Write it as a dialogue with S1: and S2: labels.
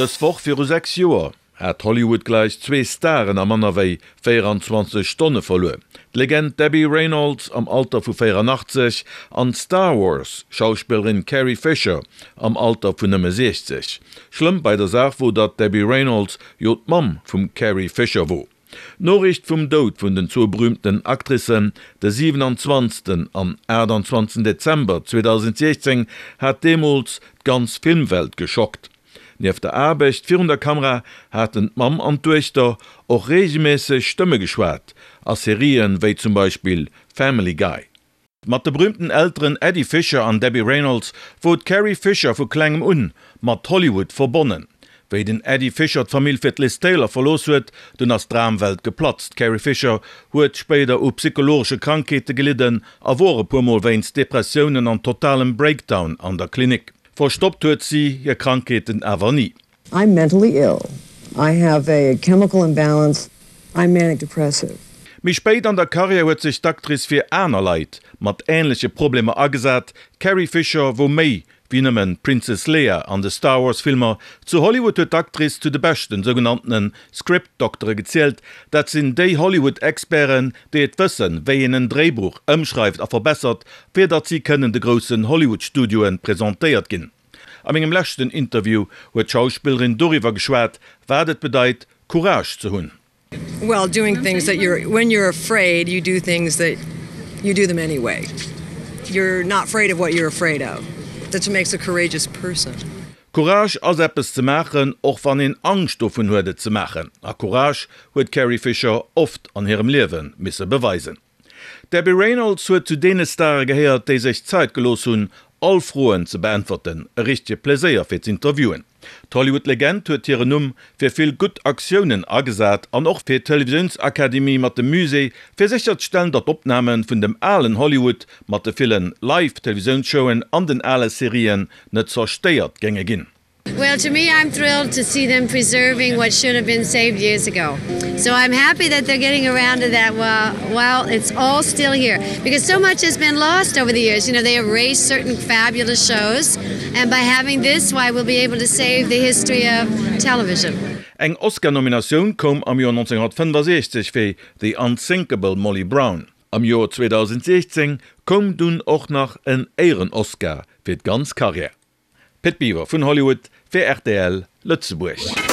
S1: Dës Woch viru 6 Joer hat Hollywood gläich zwee Staren a manner wéi 24 Stonne verluer, d'Legend Debbie Reynolds am Alter vu 84 an d'Star Wars Schauspillerin Carrie Fisher am Alter vun nëmme 60. Schlëmm bei der Saach wor, datt d'Debbie Reynolds jo d'Mamm vum Carrie Fisher wor. D'Noriicht vum Doud vun den zwou berüümten Actricen de 27. An 28. Dezember 2016 hat deemools d'ganz Filmwelt geschockt. Nieft der Aarbecht virun der Kamera haten d'Mamm an d'Duechter och reegelméisseg Stëmme geschwat a Serien wéi zum Beispill Family Guy. Mat de berüümten Elteren Eddie Fisher an Debbie Reynolds wor d'Carrie Fisher vu klengem un mat Hollywood verbonnen. Wéi den Eddie Fisher d'Famill fir d'Liz Taylor verlooss huet, dunn ass d'Dramwelt geplatzt. D'Carrie Fisher huet spéider u psychologesche Krankheete gelidden a wor e puer Mol wéinst Depressiounen an totalem Breakdown an der Klinik. Verstoppt huet si hir Krankheeten awer ni.
S2: I'm mentally ill. I have a chemical imbalance. I'm manic depressive.
S1: Méi spéit an der Karriär huet sech d'Actrice fir aner Leit mat änleche Problemer agesat. D'Carrie Fisher wor méi wéi nëmmen d'Princess Leia an de Star Wars Filmer. Zu Hollywood huet d'Actrice zu de beschten sougenanntene Script-Doktere gezielt. Dat sinn déi Hollywood-Experten, déi et wëssen, wéi een en Dréibuch ëmschreift a verbessert, fir datt si kënnen de groussen Hollywood-Studioe presentéiert ginn. A mengem leschten Interview huet d'Schauspillerin doriwwer geschwat, wat et bedeit, Courage ze hunn.
S2: Well, doing things that you're, when you're afraid, you do things that you do them anyway. You're not afraid of what you're afraid of. That's what makes a courageous person.
S1: Courage ass eppes ze maachen, och wann een Angscht dovun huet et ze maachen. A Courage huet d'Carrie Fisher oft an hirem Liewe misse beweisen. D'Debbie Reynolds huet zu deene Stare gehéiert, déi sech Zait gelooss hunn, all Froen ze beäntwerten. E richtege Pleséier fir z'interviewen. D'Hollywood-Legend huet hiren Numm fir vill gutt Aktiounen agesat an och fir d'Televisiounsakademie mat dem Musée, fir sécherzestellen, datt d'Opname vun dem alen Hollywood mat de ville Live-Televisiounsshowen an den ale Serien net zerstéiert géinge ginn.
S3: Well to me I'm thrilled to see them preserving what should have been saved years ago. So I'm happy that they're getting around to that while, while it's all still here because so much has been lost over the years. You know, they erased certain fabulous shows and by having this why we'll be able to save the history of television.
S1: Eng Oscar-Nominatioun koum am Joer 1965 fir The Unsinkable Molly Brown. Am Joer 2016 koum dunn och nach en Éieren-Oscar fir d'ganz Karriär. Pit Biwer vun Hollywood fir rtl Lëtzebuerg.